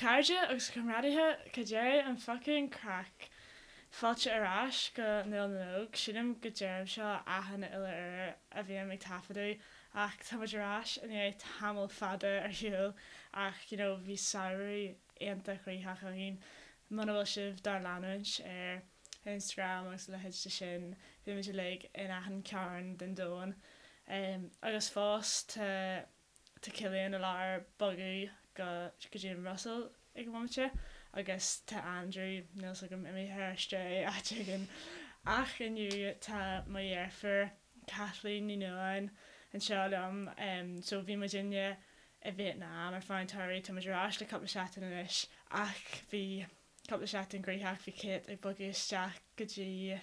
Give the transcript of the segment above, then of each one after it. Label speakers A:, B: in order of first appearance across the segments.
A: chairde agus a chomrádaithe, cad é an fucking craic? Fáilte ar ais go Nuala na nÓg. Sílim go deirim seo achan uile uair a bhím ag taifeadadh ach tá muid ar ais i ndiaidh tamall fada ar shiúl ach you know bhí samhradh iontach gnoitheach againn. Muna bhfuil sibh dár leanúint ar Instagram agus a leithéid de sin, bhí muid uilig in achan cearn den domhan. Agus fós tá tá Cillian i lár bogadh go go dtí an Bhruiséil ag an bhomaite agus tá Andrew, níl 's agam, imithe ar strae áit éigin. Ach inniu tá mo dheirfiúr Kathleen Ní Nualláin anseo liom. So bhí muidinne i Vietnam ar feadh an tsamhraidh, tá muid ar ais le cúpla seachtain anois ach bhí cúpla seachtain gnoitheach, bhí Kate ag bogadh isteach go dtí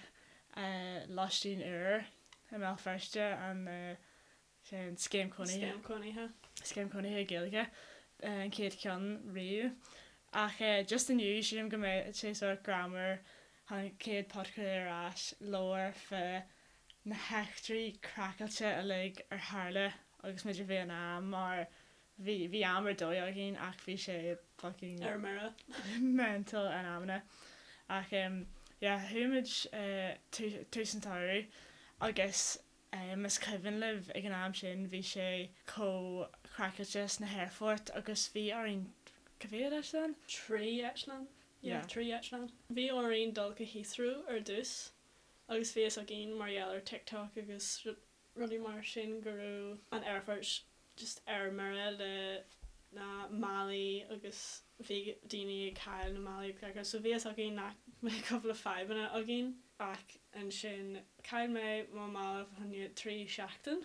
A: lóistín úr i mBéal Feirste, an sin scéim cónaithe.
B: Scéim cónaithe.
A: Scéim cónaithe Gaeilge, an chéad cheann riamh. Ach just inniu, sílim go mbeidh sé sórt greannmhar an chéad podchraoladh ar ais labhair fá na heachtraí craiceáilte uilig ar tharla agus muid i Vietnam mar bhí bhí am ar dóigh againn ach bhí sé fucking
B: Ar mire.
A: mental in amanna. Ach yeah, chuaigh muid tús an tsamhraidh agus Más cuimhin libh ag an am sin bhí sé chomh craiceáilte sna haerfoirt agus bhí orainn, cá mhéad eitleán?
B: 3 eitleán, yeah, 3 eitleán. Bhí orainn dul go Heathrow ar dtús agus bhí fhios againn mar gheall ar TikTok agus rudaí mar sin go raibh an aerfort just ar mire le na málaí agus bhí daoine ag cailleadh na málaí agus gach rud so bhí fhios againn nach mbeadh cúpla fadhbanna againn. Ach ansin chaill mé mo mhála fá choinne 3 seachtain.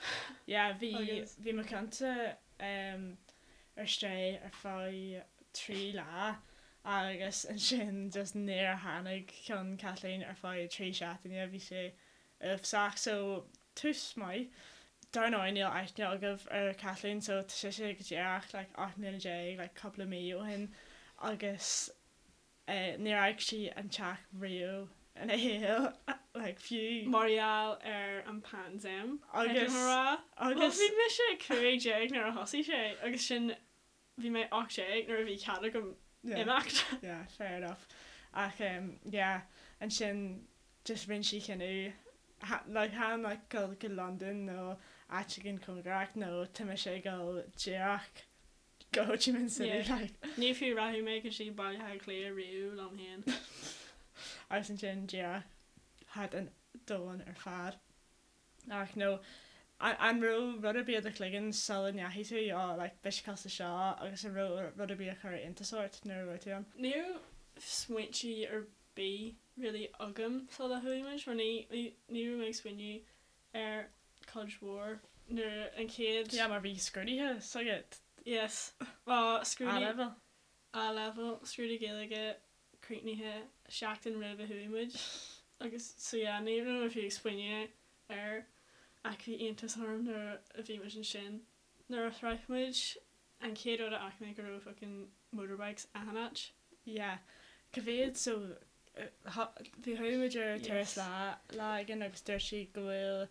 A: Yeah, bhí, bhí mo cheannsa ar strae ar feadh 3 lá agus ansin just níor tháinig ceann Kathleen ar feadh 3 seachtaine, bhí sé uafásach. So, tús maith. Dar ndóigh níl aithne agaibh ar Kathleen so tá sise go díreach like 18 mbliana like cúpla mí ó shin agus Níor fhág sí an teach riamh ina shaol, like, fiú.
B: Mar gheall ar an bpaindéim, caithfidh mé a rá. Bhuel, bhí mise 15 nuair a thosaigh sé agus sin, bhí mé 18 nuair a bhí cead agam imeacht.
A: Yeah, fair enough. Ach yeah, ansin just rinne sí cinneadh, like, chan like dul go Londain nó áit éigin cóngarach nó tá mise ag dul díreach go Ho Chi Minh City
B: Yeah.
A: like.
B: Ní fiú rachaidh mé go dtí Baile Átha Cliath riamh liom féin.
A: Agus ansin díreach thart an domhan ar fad. Ach no, an raibh rud ar bith i do chloigeann sula ndeachaigh tú, oh like beidh sé cosúil le seo agus an raibh rud ar bith a chuir iontas ort nuair a raibh tú ann?
B: Ní raibh smaointe ar bith really agam sula chuaigh muid mar ní ní raibh mé ag smaoineamh ar cuid mhór nuair an chéad.
A: Yeah mar bhí scrúduithe s'agat.
B: Yes. Bhuel scrúdú.
A: A-level.
B: A-level, scrúdú Gaeilge críochnaithe seachtain roimh a chuaigh muid agus so yeah ní raibh mé fiú ag smaoineamh air ach bhí iontas orm nuair a bhí muid ansin. Nuair a shroich muid an chéad rud a fhaca mé go raibh fucking motorbikes achan áit.
A: Yeah. Cá mhéad so bhí chuaigh muid ar turas lá lá éigin agus dúirt sí go bhfuil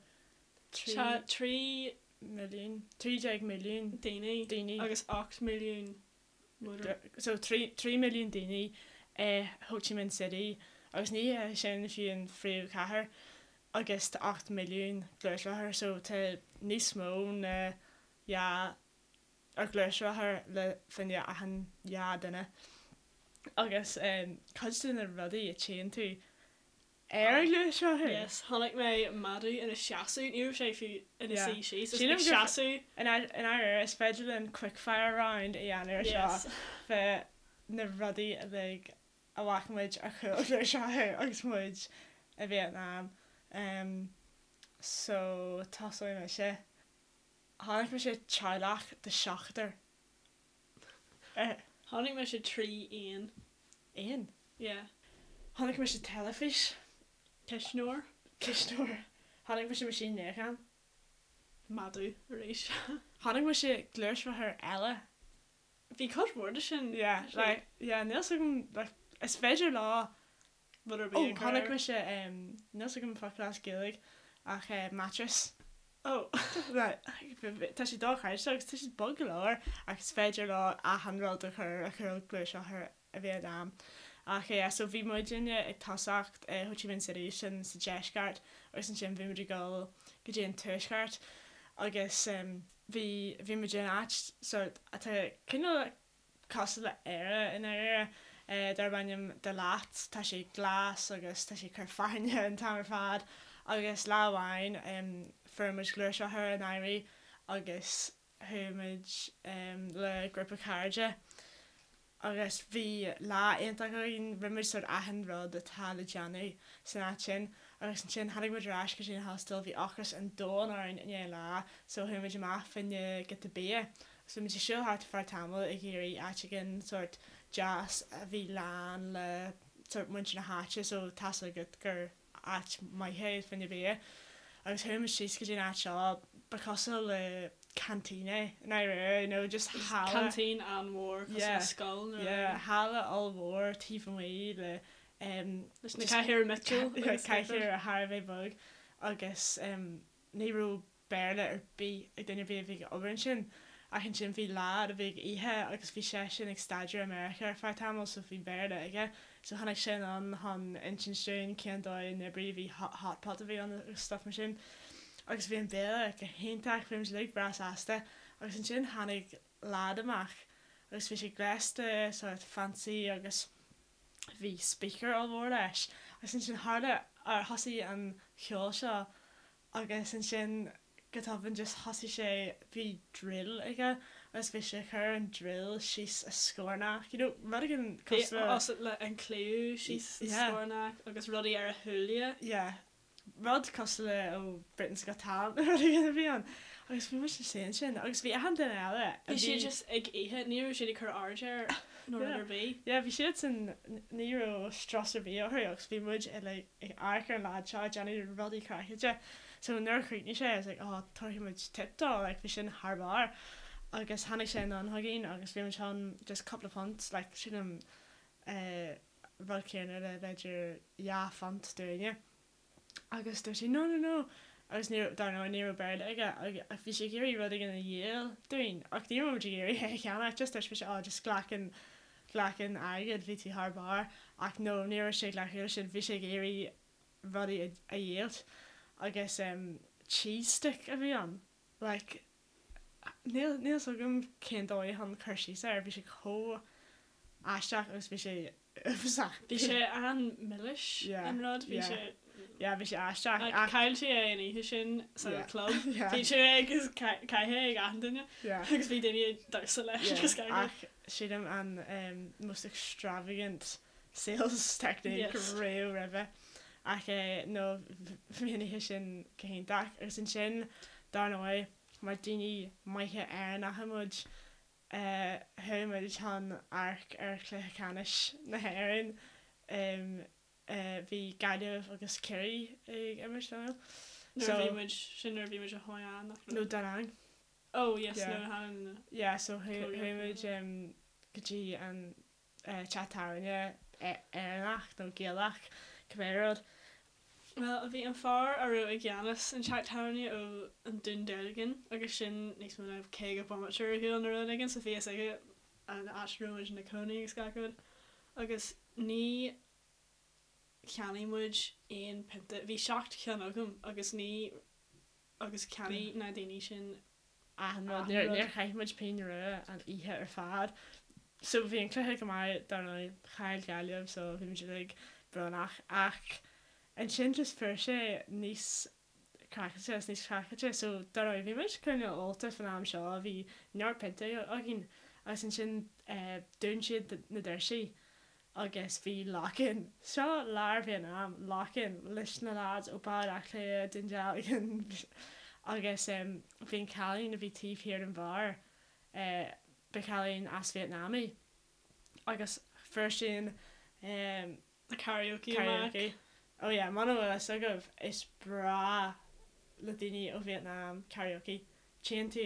B: 3. Tá 3.
A: milliún, 13 milliún.
B: daoine.
A: Daoine.
B: Agus 8 milliún
A: motor. So 3 3 milliún daoine i Ho Chi Minh City agus ní hé sin fiú an phríomhchathair agus tá 8 milliún gluaisrothar so tá níos mó ná dhá ar ghluaisrothar le fá choinne achan dhá duine. Agus cuid de na rudaí a tchíonn tú ar an ghluaisrothar.
B: Yes, chonaic mé madadh ina seasamh, ní raibh sé fiú ina suí síos, just ag seasamh.
A: I ndáiríre, is féidir linn quickfire round a dhéanamh ar seo fá na rudaí uilig a bhfaca muid ar chúl gluaisrothair agus muid i Vietnam. So, tosóidh mise. Chonaic mise teaghlach de sheachtar.
B: Chonaic mise 3 éan.
A: Éan?
B: Yeah.
A: Chonaic mise teilifís.
B: Cuisneoir.
A: Cuisneoir. Chonaic mise meaisín níocháin.
B: Madadh arís.
A: Chonaic mise gluaisrothar eile.
B: Bhí cuid mhór de sin.
A: Yeah, like, yeah, níl 's agam, like, is féidir leo
B: rud ar bith
A: Oh,
B: a chur
A: chonaic
B: air.
A: mise, níl 's agam focal as Gaeilge ach mattress. Oh right tá sé dochreidte agus tá siad bog go leor ach is féidir leo achan rud a chur a chuirfeadh gluaisrothar i Vietnam. Ach yeah so bhí muidinne ag tosacht i Ho Chi Minh City sin sa deisceart agus ansin bhí muid ag dul go dtí an tuaisceart agus bhí bhí muid in áit sort atá cineál cosúil le Éire i ndáiríre, darb ainm Da Lat. Tá sé glas agus tá sé ag cur fearthainne an t-am ar fad agus lá amháin fuair muid gluaisrothar in éirí agus chuaigh muid le grúpa cairde agus bhí lá iontach againn, rinne muid sort achan rud atá le déanamh san áit sin agus ansin tháinig muid ar ais go dtí an hostel, bhí ocras an domhain orainn i ndiaidh an lá so chuaigh muid amach fá choinne giota bia. So bhí muid ag siúl thart ar feadh tamaill ag iarraidh áit éigin sórt deas a bhí lán le sórt muintir na háite so tá's agat gur áit maith é fá choinne bia. Agus chuaigh muid síos go dtí an áit seo, ba cosúil le canteen é i ndáiríre, you know, just halla.
B: Canteen an-mhór cosúil le scoil
A: nó rud éigin. Yeah, halla ollmhór taobh amuigh le em.
B: Leis na cathaoireacha miotail
A: agus. Cathaoireacha thar a bheith bog agus em ní raibh Béarla ar bith ag duine ar bith a bhí ag obair ansin. Ach ansin bhí leaid a bhí ag ithe agus bhí seisean ag staidéar i Meiriceá ar feadh tamaill so bhí Béarla aige. So tháinig sé anonn chun insint dúinn cén dóigh a n-oibríonn, bhí hot pot a bhí ann agus stuff mar sin. Agus bhí an béile go hiontach, bhí muid uilig breá sásta. Agus ansin tháinig leaid amach agus bhí sé gléasta sort fancy agus bhí speaker ollmhór leis. Agus ansin tharla, thosaigh an ceol seo Agus ansin go tobann just thosaigh sé, bhí drill aige agus bhí sé ag cur an drill síos a scornach, you know, rud éigin
B: cosúil le. Bhí le an claíomh síos a scornach agus rudaí ar a shúile.
A: Yeah. Rud cosúil le ó Britain's Got Talent nó rud éigin a bhí ann. Agus bhí muid ina suí ansin agus bhí achan duine eile
B: a bhí. Bhí siad just ag ithe, ní raibh siad ag cur aird air nó rud ar bith.
A: Yeah, bhí siadsan, ní raibh strus ar bith orthu agus bhí muid uilig ag amharc ar an leaid seo ag déanamh rudaí craiceáilte. So nuair a chríochnaigh sé, I was like, oh, tabharfaidh muid tip dó, like bhí sin thar barr. Agus tháinig sé anonn chugainn agus bhí muid chun just cúpla punt, like sílim eh rud céanna le b'fhéidir £2 dúinne. Agus dúirt sé no no no agus ní raibh, dar ndóigh ní raibh Béarla aige ach bhí sé ag iarraidh rud éigin a dhíol dúinn ach ní raibh muid ag iarraidh é a cheannach just dúirt mise oh just glac an, glac an airgead bhí tú thar barr ach no ní raibh sé ag glacadh leis sin bhí sé ag iarraidh rudaí a, a dhíolt agus em cheese stick a bhí ann like níl, níl 's agam cén dóigh chun cur síos air bhí sé chomh aisteach agus bhí sé
B: uafásach. Bhí sé an-milis an rud, bhí sé.
A: Yeah, bhí sé aisteach
B: ach. Chaill sé é an oíche sin sa club. Bhí sé agus caithfidh ag achan duine agus bhí daoine ag damhsa leis
A: agus gach rud. Ach sílim an most extravagant sales technique riamh roimhe. Ach no bhí an oíche sin go hiontach agus ansin dar ndóigh mar daoine maithe Éireannacha muid Chuaigh muid chun amharc ar chluiche ceannais na hÉireann. Bhí Gaillimh agus Ciarraí ag imirt, an
B: ea? Nuair a bhí muid, sin nuair a bhí muid i Hoi An,
A: nach raibh? No, Da Nang.
B: Oh, yes, nuair a tháinig
A: na. Yeah, so chuaigh muid go dtí an teach tábhairne Éireannach nó Gaelach, cibé rud.
B: Bhuel, bhí an fear a raibh i gceannas an teach tábhairne ó an Dún Dealgan agus sin níos mó ná 50 bomaite ar shiúl nó rud éigin so bhí fhios aige an áit a raibh muid ina cónaí agus gach rud agus ní cheannaigh muid aon pionta, bhí 7 cheann agam agus ní agus cheannaigh na daoine sin
A: achan rud. Níor chaith muid pingin rua an oíche ar fad. So bhí an cluiche go maith, dar ndóigh, chaill Gaillimh so bhí muid uilig brónach ach ansin just fuair sé níos craiceáilte is níos craiceáilte so dar ndóigh bhí muid cineál ólta fan am seo, bhí neart piontaí againn agus ansin dún siad na doirsí agus bhí lock-in, seo lár Vietnam, lock-in leis na lads ó Baile Átha Cliath, Dún Dealgan agus bhí an cailín a bhí taobh thiar den bheár, ba chailín as Vietnam í agus fuair sí an
B: Na karaoke amach.
A: Karaoke. Oh yeah, muna bhfuil fhios agaibh, is breá le daoine ó Vietnam karaoke. Tchíonn tú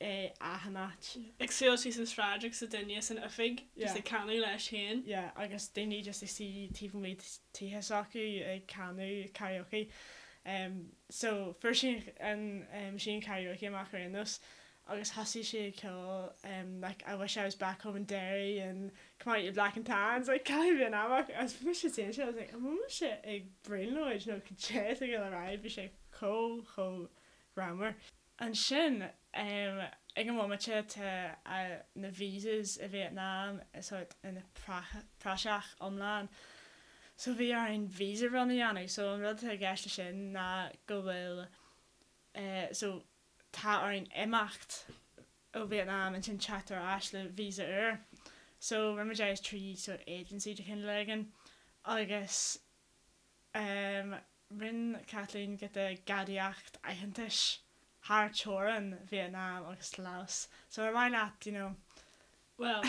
A: é achan áit.
B: Ag siúl síos an sráid agus duine san oifig just ag canadh leis féin.
A: Yeah, agus daoine just ag suí taobh amuigh tithe s'acu ag canadh karaoke. So fuair sí an machine karaoke amach ar aon nós agus thosaigh sí ag ceol like I wish I was back home in Derry and come out you black and tans like cailín Vietnamach agus bhí mise ag I was like an bhfuil mise ag brionglóid nó cad é atá ag dul ar aghaidh bhí sé chomh chomh greannmhar. Ansin ag an bhomaite tá na visas i Vietnam sort ina praiseach iomlán so bhí orainn visa run a dhéanamh so an rud atá i gceist leis sin ná go bhfuil so tá orainn imeacht ó Vietnam ansin teacht ar ais le visa úr so rinne muid é trí sort agency de chineál éigin agus Rinne Kathleen giota gadaíocht aitheantais thar teorainn Vietnam agus Laos. So ar mhaith leat, you know.
B: Bhuel,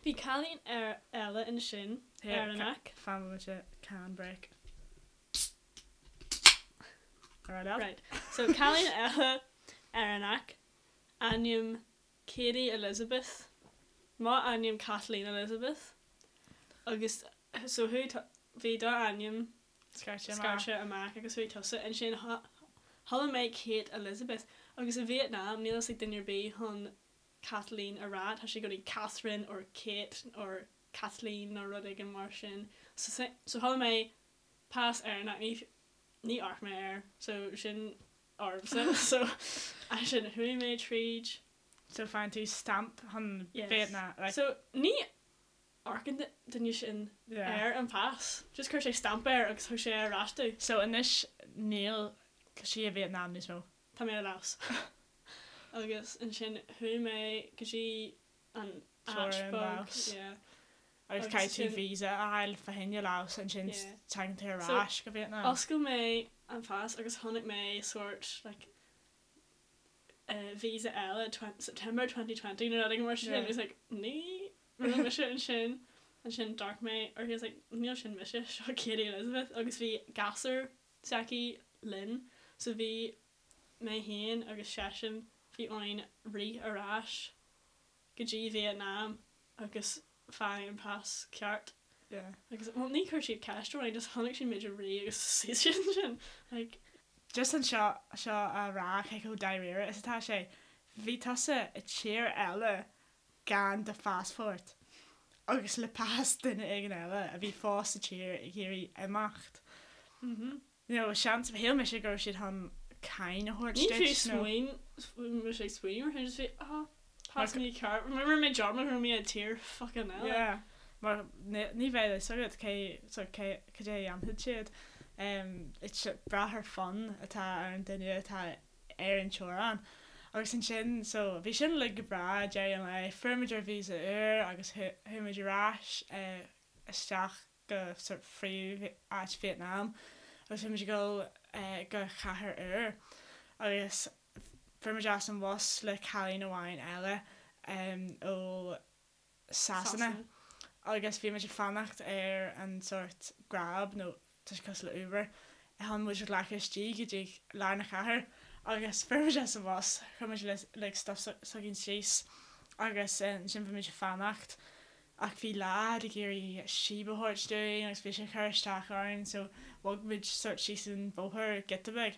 B: bhí cailín eile ansin, Éireannach.
A: Fan bomaite, can break. Ar aghaidh leat.
B: Right. So cailín eile Éireannach, ainm Katie Elizabeth, mo ainm Kathleen Elizabeth, agus so chuaigh, bhí do ainm scairte amach agus chuaigh tusa ansin chuala mé Kate Elizabeth agus i Vietnam níl fhios ag duine ar bith chun Kathleen a rá, tá sé i gcónaí Catherine or Kate or Kathleen nó rud éigin mar sin so so chuala mé pas Éireannach ní ní amharc mé air so sin ormsa so ansin chuaigh mé tríd.
A: So faigheann tú stamp chun Vietnam
B: like. So ní amharcann duine sin ar an pas. Just chuir sé stamp air agus thug sé ar ais domh.
A: So anois níl sí i Vietnam níos mó.
B: Tá mé i Laos. Agus ansin chuaigh mé go dtí an áit
A: beag. Yeah. Agus caithfidh tú visa a fháil fá choinne Laos ansin tagann tú ar ais go Vietnam.
B: So oscail mé an pas agus chonaic mé sórt like visa eile September 2020 nó rud éigin mar sin. It was like ní raibh mise ansin. Ansin d'amharc mé uirthi I was like níl sin mise, seo Katie Elizabeth agus bhí gasúr s'aici linn so bhí mé féin agus seisean bhí orainn rith ar ais go dtí Vietnam agus faigh an pas ceart.
A: Yeah.
B: Agus, well, ní chuir siad ceist orainn, just chonaic siad muid ag rith agus suas siad ansin, like.
A: Just anseo seo a rá cé chomh dáiríre is atá sé, bhí tusa i tír eile gan do phaspórt agus le pas duine éigin eile a bhí fós sa tír ag iarraidh imeacht.
B: Mhm.
A: You know, seans, shíl mise go raibh siad chun cáin a thabhairt
B: Ní
A: duit
B: fiú
A: nó.
B: smaoin, mise ag smaoineamh ar sin, just bhí, ah, pas mícheart, rinne mé dearmad go raibh mé i tír fucking eile.
A: Yeah, mar ní, ní bheadh fhios agat cé, so cé, cad é a dhéanfaidh siad. Um, it's brath ar fonn atá ar an duine atá ar an teorainn. Agus ansin, so, bhí sin uilig go breá, deireadh an lae, fuair muid ár visa úr agus chuaigh muid ar ais eh, isteach go sort phríomh-áit Vietnam agus bhí muid ag dul go chathair úr agus fuair muid as an bhus le cailín amháin eile ó Sasana agus bhí muid ag fanacht ar an sort Grab nó tá sé cosúil le Uber chun muid a ghlacadh istigh go dtí lár na cathair agus fuair muid as an bhus chuir muid like stuff s'againn síos agus ansin bhí muid ag fanacht Ach bhí leaid ag iarraidh síob a thabhairt dúinn agus bhí sé ag cur isteach orainn so bhog muid sort síos an bóthar giota beag.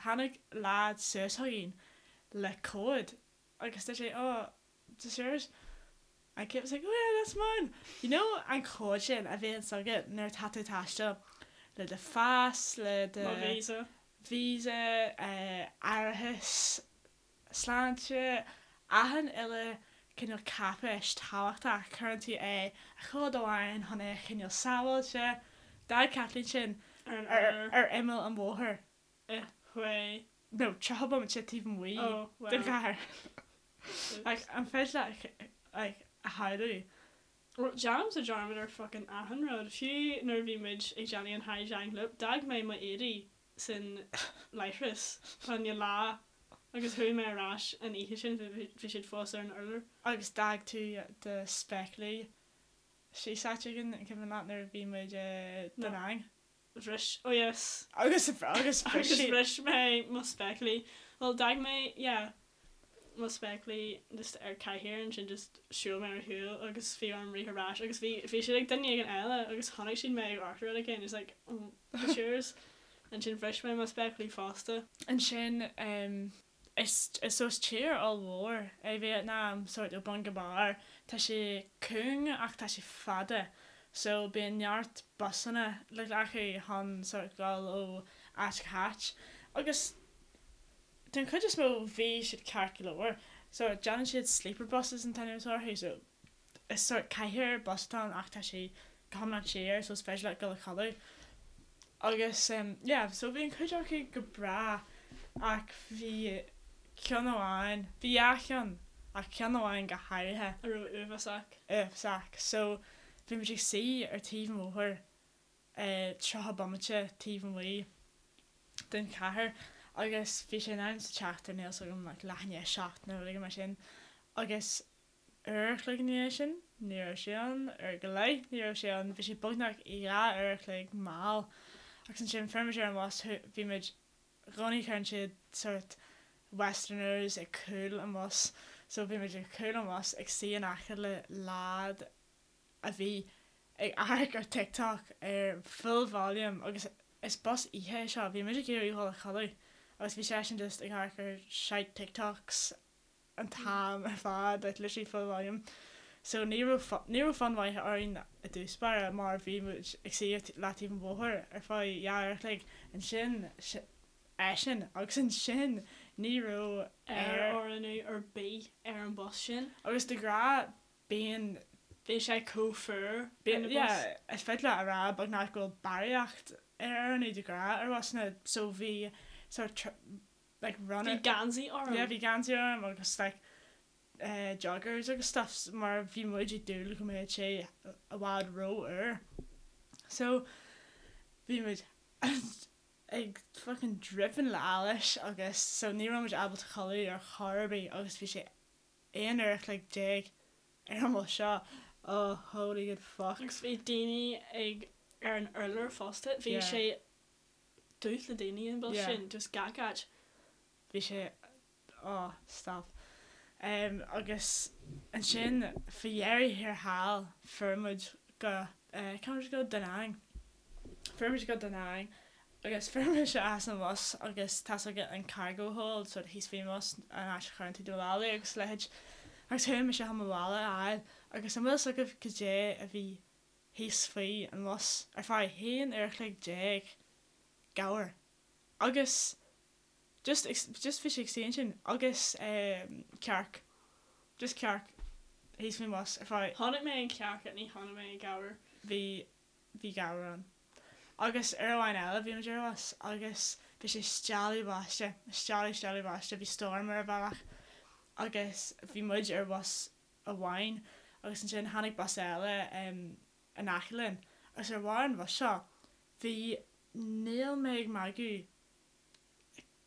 A: Tháinig leaid suas chugainn le comhad agus dúirt sé oh, is this yours? And Kate was like oh yeah, that's mine! You know an comhad sin a bhíonns agat nuair atá tú ag taisteal le do phas, le do.
B: Mo visa.
A: Visa, árachas, sláinte, achan uile cineál cáipéis tábhachtach, cuireann tú é i gcomhad amháin chun é a choinneáil sábháilte. D'fhág Kathleen sin ar imeall an bhóthair.
B: I Hue.
A: No, 30 bomaite taobh amuigh den chathair. Like, an féidir leat like, a shamhlú?
B: Well, déanaimse dearmad ar fucking achan rud. Fiú nuair a bhí muid ag déanamh an Ha Giang Loop, d'fhág mé mo éadaí san leithreas fá choinne lá agus chuaigh mé ar ais an oíche sin, bhí siad fós ar an urlár.
A: Agus d'fhág tú do spéaclaí síos áit éigin, an cuimhin leat nuair a bhí muid i Da Nang?
B: Bhris, oh yes.
A: Agus agus
B: bhris siad. Agus bhris mé mo spéaclaí. Bhuel d'fhág mé, yeah. mo spéaclaí just ar cathaoir ansin just shiúil mé ar shiúl agus bhí orm rith ar ais agus bhí bhí siad ag duine éigin eile agus chonaic siad mé ag amharc ar rud éigin it's like oh it's yours. Ansin bhris mé mo spéaclaí fosta.
A: Ansin is so is tír ollmhór é Vítneam, sórt ó bun go barr. Tá sé cúng ach tá sé fada so bíonn neart busanna le glacadh chun sórt dul ó áit go háit. Agus den chuid is mó bhí siad ceart go leor. So déanann siad sleeper buses an t-ainm atá orthu so is sórt cathaoir bus atá ann ach tá sé go hiomlán siar so is féidir leat dul a chodladh. Agus yeah so bhí an chuid acu go breá ach bhí ceann amháin, bhí dhá cheann ach ceann amháin go háirithe.
B: A raibh uafásach.
A: Uafásach. So bhí muid ag suí ar taobh an bhóthair 30 bomaite taobh amuigh den chathair agus bhí sé in am sa tseachtain níl 's agam like leath i ndiaidh a 7 nó rud éigin mar sin agus uair a chloig ina dhiaidh sin, ní raibh sé ann, uair go leith, ní raibh sé ann, bhí sé beagnach 2 uair a chloig mall. Agus ansin fuair muid ar an bhus, bhí muid, i gcónaí cuireann siad sórt westerners ag cúl an bhus, so bhí muid ag cúl an bhus ag suí in aice le leaid a bhí ag amharc ar TikTok ar full volume agus is bus oíche é seo, bhí muid ag iarraidh dhul a chodladh agus bhí seisean just ag amharc ar shite TikToks an t-am ar fad, like literally full volume. So ní raibh ní raibh fonn mhaith orainn i dtús báire mar bhí muid ag suí ar leataobh an bhóthair ar feadh dhá uair a chloig, ansin eisean agus ansin ní raibh
B: aer aerfhorlíonadh ar bith ar an bus sin.
A: Agus de ghnáth bíonn.
B: Bhí sé chomh fuar
A: ar an bus. Yeah, is féidir leat a rá beagnach go bhfuil barraíocht aerfhorlíonadh de ghnáth ar bhusanna so bhí sort like runner.
B: Bhí geansaí orm.
A: Yeah bhí geansaí orm agus like eh joggers agus stuff mar bhí muid ag dúil go mbeadh sé i bhfad ró-fhuar. So bhí muid ag fucking dripping le allas agus so ní raibh muid ábalta codladh ar chor ar bith agus bhí sé aon uair a chloig déag ar an mbus seo oh holy good fuck.
B: Agus bhí daoine ag ar an urlár fosta bhí
A: Yeah.
B: sé dubh le daoine an bus
A: Yeah.
B: sin, just gach áit.
A: Bhí sé, oh, stop. Em, agus ansin, faoi dheireadh thiar thall, fuair muid go, eh, cá raibh muid ag dul? Da Nang. Fuair muid go Da Nang agus fuair mise as an bhus agus tá's agat an cargo hold, sort of thíos faoin bhus, an áit a chuireann tú do mhálaí agus a leithéid. Agus chuaigh mise chun mo mhála a fháil agus an bhfuil 'fhios agaibh goidé a bhí thíos faoi an bhus ar feadh haon uair a chloig déag, gabhar. Agus just just bhí sé ag suí ansin agus cearc, just cearc thíos faoin bhus ar feadh.
B: Chonaic mé an cearc ach ní chonaic mé an gabhar.
A: Bhí bhí gabhar ann. Agus uair amháin eile bhí muid ar bhus agus bhí sé stealladh báiste, stealladh stealladh báiste, bhí storm ar an bhealach agus bhí muid ar bhus amháin agus ansin tháinig bus eile in aice linn agus ar bharr an bhus seo bhí, níl mé ag magadh,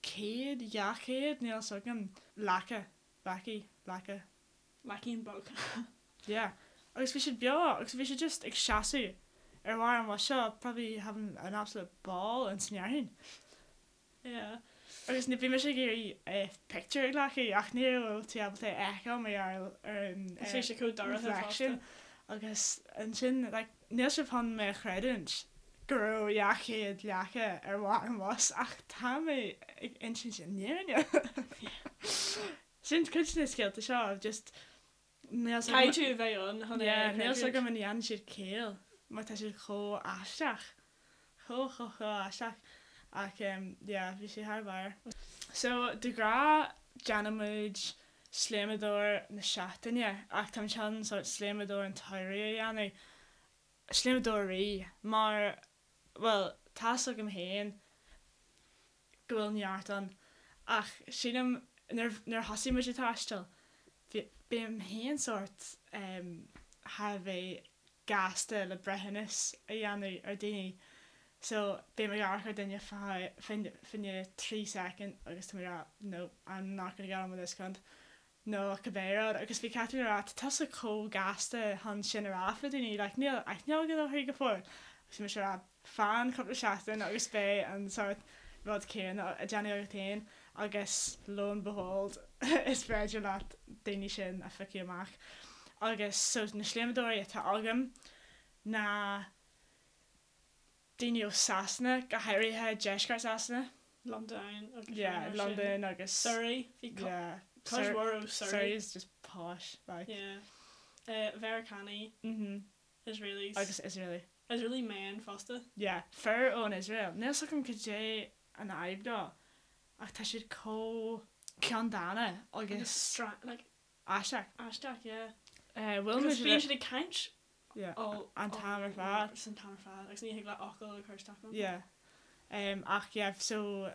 A: 100, 200, níl 'fhios agam, leaca, leacaí, leaca.
B: Leacaín beag.
A: Yeah. Agus bhí siad beo agus bhí siad just ag seasamh ar bharr an bhus seo probably having an absolute ball ins an fhearthainn.
B: Yeah.
A: Agus bhí mise ag iarraidh pictiúr a ghlacadh ach ní raibh tú ábalta é a fheiceáil mar gheall ar an
B: Bhí sé chomh dorcha
A: reflection
B: fosta.
A: agus ansin like níl sibh chun mé a chreidiúint go raibh 200 leaca ar bharr an bhus ach tá mé ag insint an fhírinne. Sin cuid de na scéalta seo just níl 's agam.
B: Caithfidh tú a bheith ann chun é a
A: Yeah, níl 's
B: chreidiúint.
A: agam an ndéanann siad ciall mar tá siad chomh aisteach. Chomh chomh chomh aisteach. Ach em yeah, bhí sé thar barr. So de ghnáth déanann muid sléamadóir na seachtaine ach táim chun sórt sléamadóir an tsamhraidh a dhéanamh. Sléamadóirí mar bhuel tá's agam féin go bhfuil neart ann ach sílim nuair nuair a thosaigh muid ag taisteal bhí bím féin sórt em thar a bheith gasta le breithiúnas a dhéanamh ar daoine so bím ag amharc ar duine fá choinne 3 soicind agus tá mé ag rá no I'm not gonna get on with this cunt nó cibé rud agus bhí Catherine ag rá tá tusa chomh gasta chun sin a rá fá daoine like níl aithne agat orthu go fóill agus bhí mise ag rá fan cúpla seachtain agus beidh an sórt rud céanna á déanamh agat féin agus lo and behold is féidir leat daoine sin a phiocadh amach agus so na sléamadóirí atá agam ná. Daoine ó Sasana, go háirithe deisceart Sasana.
B: Londain
A: agus Yeah, rudaí mar sin. Londain agus
B: Surrey, bhí co-
A: yeah,
B: cuid
A: Sur-
B: mhór ó Surrey.
A: Surrey is just posh, like.
B: Yeah. Eh, Mheiriceánaigh,
A: Mhm.
B: Israelis.
A: Agus Israeli.
B: Israeli men fosta.
A: Yeah, fir ón Iosrael. Níl 's agam cad é an fhadhb leo, ach tá siad chomh ceanndána
B: Agus
A: agus
B: stra- like,
A: aisteach.
B: aisteach, yeah.
A: Eh, bhuail
B: Agus
A: muid
B: bíonn
A: le-
B: siad ag caint
A: Yeah,
B: all
A: an t-am ar fad.
B: San t-am ar fad agus ní thig leat fhocal a chur isteach ann.
A: Yeah. Um, ach yeah, so.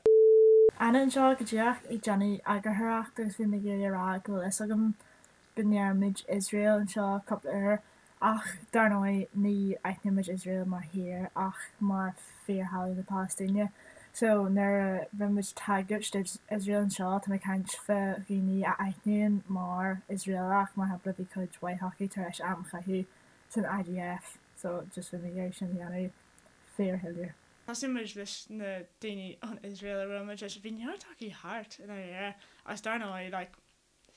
A: Anna anseo go díreach ag déanamh eagarthóireacht agus bhí mé ag iarraidh a rá go bhfuil fhios agam go ndeirimid Iosrael anseo cúpla uair ach dar ndóigh ní aithnímid Iosrael mar thír ach mar fíorthalamh na Palaistíne so nuair a rinne muid tagairt d'Iosrael anseo tá mé ag caint fá dhaoine a aithníonn mar Iosraelach mar shampla bhí cuid mhaith acu tar éis am a chaitheamh san IDF so just bhí mé ag iarraidh sin a dhéanamh fíorshoiléir. Thosaigh muid leis na daoine ón Iosrael a bhuail muid leis, bhí neart acu thart i ndáiríre agus dar ndóigh like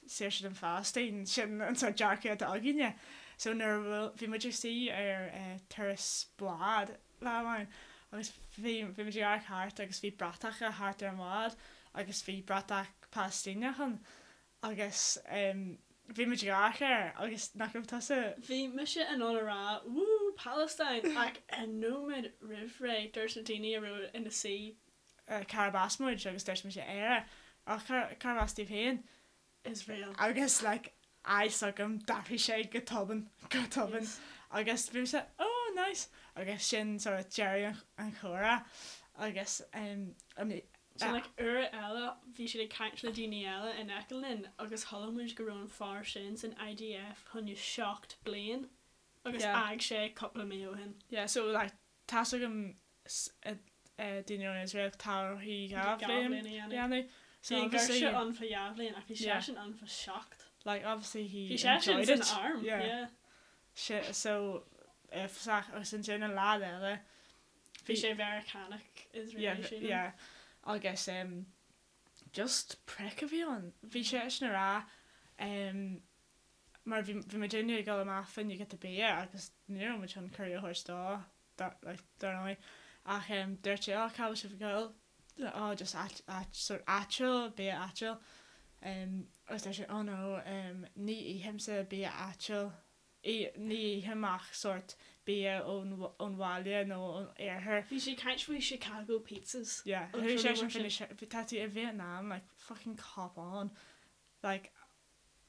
A: saoirse don Phalaistín, sin an sórt dearcadh atá againne. So nuair a bhuail, bhí muid ag suí ar turas bád lá amháin agus bhí, bhí muid ag amharc thart agus bhí bratacha thart ar an bhád agus bhí bratach Palaistíneach ann agus bhí muid ag amharc air agus nach raibh tusa.
B: Bhí mise in ann a rá 'Woo Palestine' ach nóiméad roimh ré dúirt na daoine a raibh ina suí.
A: Cárb as muid agus dúirt mise Éire. Ach cárb as daoibh féin?
B: Israel.
A: Agus like a fhios agam d'athraigh sé go tobann, go tobann. Agus bhí mise oh nice agus sin sort of deireadh an chomhrá agus um,
B: Sin like uair eile bhí siad ag caint le daoine eile in aice linn agus chuala muid go raibh an fear sin san IDF choinne 7 bliain agus
A: Yeah.
B: d'fhág sé cúpla mí ó shin.
A: Yeah so like tá's agam daoine ón Iosrael tá orthu 2 bhliain a dhéanamh. So
B: Bhí an
A: obviously
B: girseach ann fá 2 bhliain ach bhí seisean ann fá 7.
A: Like obviously he
B: Bhí seisean
A: enjoyed
B: san
A: it.
B: arm,
A: Yeah.
B: yeah.
A: Si- so uafásach agus ansin an lá eile
B: Bhí sé Mheiriceánach Israeli
A: Yeah,
B: sílim.
A: yeah. Agus um, just prick a bhí ann. Bhí seisean ag rá um, mar bhí bhí muidinne ag dul amach fá choinne giota bia agus ní raibh muid chun cuireadh a thabhairt dó. Dar ndóigh. Ach dúirt sé, oh, cá bhfuil sibh ag dul? Oh, just áit, áit, sort áitiúil, bia áitiúil. Agus dúirt sé, oh no, ní ithimse bia áitiúil, ní ithim ach sort bia ón, ón bhaile nó ón iarthar.
B: Bhí sé ag caint faoi Chicago pizzas.
A: Yeah, chuaigh seisean faoi na, tá tú i Vietnam, like, fucking cop on. Like,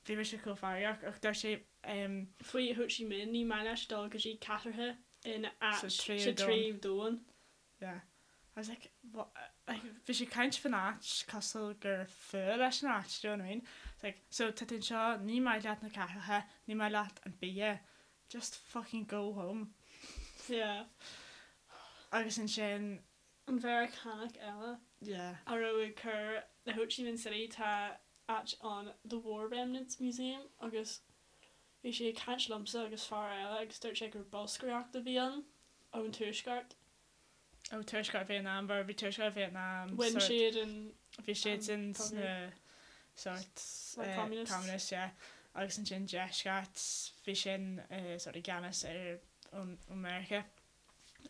A: Bhí mise chomh feargach ach dúirt sé em.
B: Faoi Ho Chi Minh, ní maith leis dul go dtí cathracha in
A: Sa
B: áit
A: tríú
B: sa
A: domhan.
B: tríú domhan.
A: Yeah. I was like, what, like, bhí sé ag caint faoin áit cosúil gur fuath leis an áit, do you know what I mean? It's like, so tá tú anseo, ní maith leat na cathracha, ní maith leat an bia, just fucking go home.
B: Yeah.
A: Agus ansin.
B: An Mheiriceánach eile
A: Yeah.
B: a raibh ag cur i Ho Chi Minh City tá áit ann The War Remnants Museum agus bhí sé ag caint liomsa agus fear eile agus dúirt sé gur bolscaireacht a bhí ann ón tuaisceart.
A: Ó tuaisceart Vietnam mar bhí tuaisceart Vietnam
B: Bhain
A: sort
B: siad an
A: bhí siad
B: an
A: sin
B: cogadh.
A: sna sort
B: Like communists.
A: communists yeah agus ansin deisceart bhí sin sort i gceannas ar ón Meiriceá.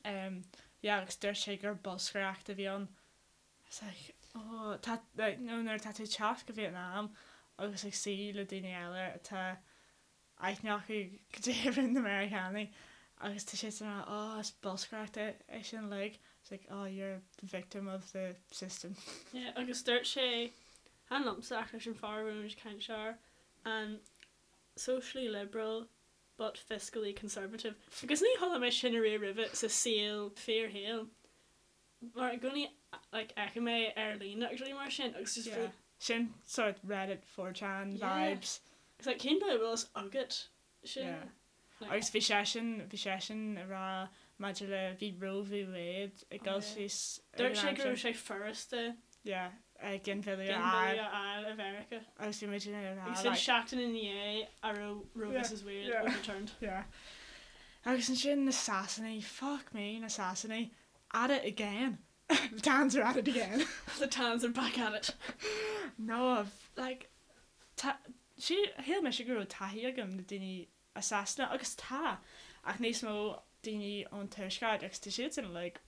A: Um yeah agus dúirt sé gur bolscaireacht a bhí ann. I was like oh tá like you know nuair atá tú ag teacht go Vietnam agus ag suí le daoine eile atá aithne acu cad é a rinne na Meiriceánaigh agus tá siad ag rá oh is bolscaireacht é é sin uilig. It's like oh you're the victim of the system.
B: Yeah agus dúirt sé chan liomsa ach leis an fear a raibh muid ag caint air an socially liberal but fiscally conservative. Agus ní chuala mé sin ariamh roimhe sa saol, fíorshaol. Mar i gcónaí like fheicim é ar líne agus rudaí mar sin agus just
A: Yeah. Sin sort Reddit 4chan
B: Yeah.
A: vibes.
B: It's like cén dóigh a bhfuil fhios agat sin?
A: Yeah.
B: Like,
A: Agus bhí seisean, bhí seisean ag rá maidir le, bhí Roe v Wade ag
B: Oh,
A: dul
B: yeah.
A: síos ag
B: Dúirt
A: an
B: sé
A: am
B: go raibh
A: sin.
B: sé furasta
A: Yeah, ginmhilleadh a fháil.
B: ginmhilleadh a fháil i Mheiriceá.
A: Agus bhí muid ag rá
B: Agus sin
A: like.
B: seachtain ina dhiaidh a raibh Roe
A: Yeah,
B: vs Wade
A: yeah.
B: overturned.
A: Yeah. Agus ansin na Sasanaigh, fuck me, na Sasanaigh, at it again. The Tans are at it again.
B: The Tans are back at it.
A: No, like, tá, sí, shíl mise go raibh taithí agam le daoine as Sasana, agus tá, ach níos mó daoine ón tuaisceart agus tá siadsan like.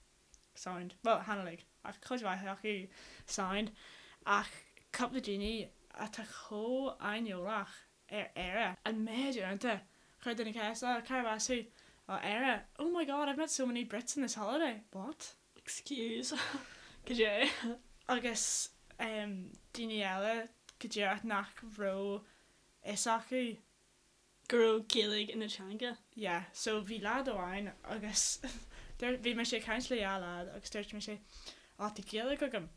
A: Sound. Bhuel, chan uilig, ach cuid mhaith acu sound. Ach cúpla daoine atá chomh aineolach ar Éire. An méid uaireanta chuir duine ceist, oh, cárb as thú? Oh, Éire. Oh my god, I've met so many Brits on this holiday. What?
B: Excuse. Cad é?
A: Agus daoine eile go díreach nach raibh fhios acu
B: go raibh Gaeilge ina teanga.
A: Yeah, so bhí leaid amháin agus bhí mise ag caint le dhá leaid agus dúirt mise oh tá Gaeilge agam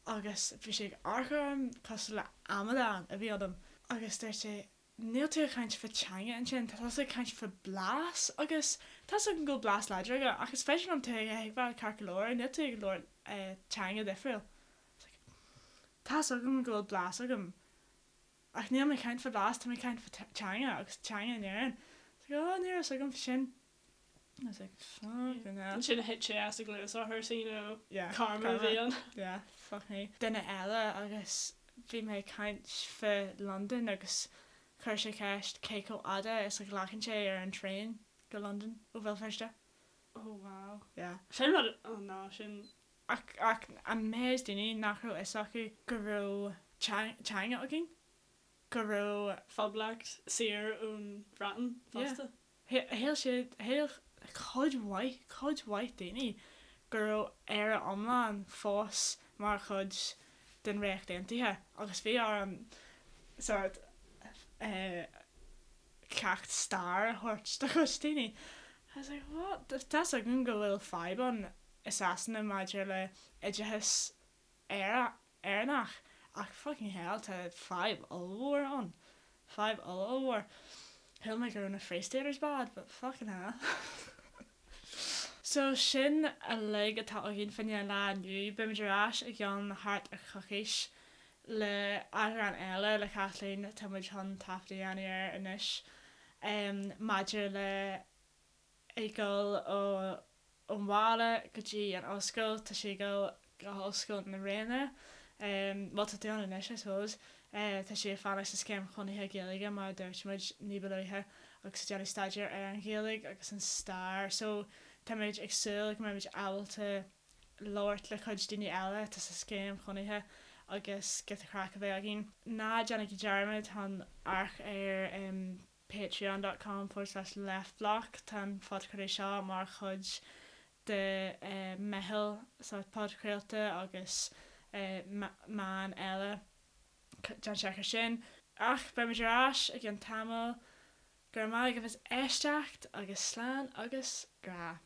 A: agus bhí sé ag amharc orm cosúil le amadán a bhí ionam agus dúirt sé níl tú ag caint fá teanga ansin, tá tusa ag caint fá blas agus tá's agam go bhfuil blas láidir agat ach is féidir liom tú a thuigbheáil ceart go leor, níl tú ag labhairt teanga difriúil. It's like tá's agam go bhfuil blas agam Ach níl mé ag caint fá blas, tá mé ag caint fá teanga agus teanga in Éirinn. It's like, oh, ní raibh fhios agam fá sin. I was like, fucking hell.
B: Ansin thit sé as a gcluas orthu, so you know,
A: Yeah,
B: karma a bhí ann.
A: Yeah, fuck me. Duine eile agus bhí mé ag caint fá Londain agus chuir sé ceist cé chomh fhada is a ghlacann sé ar an traein go Londain ó Bhéal Feirste.
B: Oh wow.
A: Yeah.
B: Sin rud, oh no, sin.
A: Ach, ach an méid daoine nach raibh fhios acu go raibh teanga againn, go raibh.
B: Phoblacht saor ón Bhreatain fosta.
A: Yeah. Shíl siad, shíl cuid mhaith, cuid mhaith daoine go raibh Éire iomlán fós mar chuid den Ríocht Aontaithe agus bhí orm sort eh ceacht stair a thabhairt do chuid daoine. I was like, what? Tá's againn go bhfuil fadhb ann i Sasana maidir le oideachas Éireannach ach fucking hell tá fadhb ollmhór ann. Fadhb oll-ollmhór. Shíl mé go raibh na Free Staters bad but fucking hell. So sin uilig atá againn fá choinne an lá inniu. Beimid ar ais i gceann thart ar choicís le eagrán eile le Kathleen, tá muid chun taifead a dhéanamh air anois, maidir le ag dul ón bhaile go dtí an ollscoil, tá sí ag dul go hOllscoil na Ríona, bhuel tá tú ann anois I suppose, tá sí ag fanacht sa scéim chónaithe Gaeilge mar a dúirt muid ní ba luaithe agus ag déanamh staidéar ar an Ghaeilge agus an stair so táimid ag súil go mbeimid ábalta labhairt le cuid daoine eile atá sa scéim chónaithe agus giota craic a bheith againn. Ná déanaigí dearmad chun amharc ar patreon dot com forward slash leftblock tá an phodchraoladh seo mar chuid de meitheal sórt podchraolta agus meán eile. Déan seic ar sin. Ach beimid ar ais i gceann tamaill. Go raibh maith agaibh as éisteacht agus slán agus grá.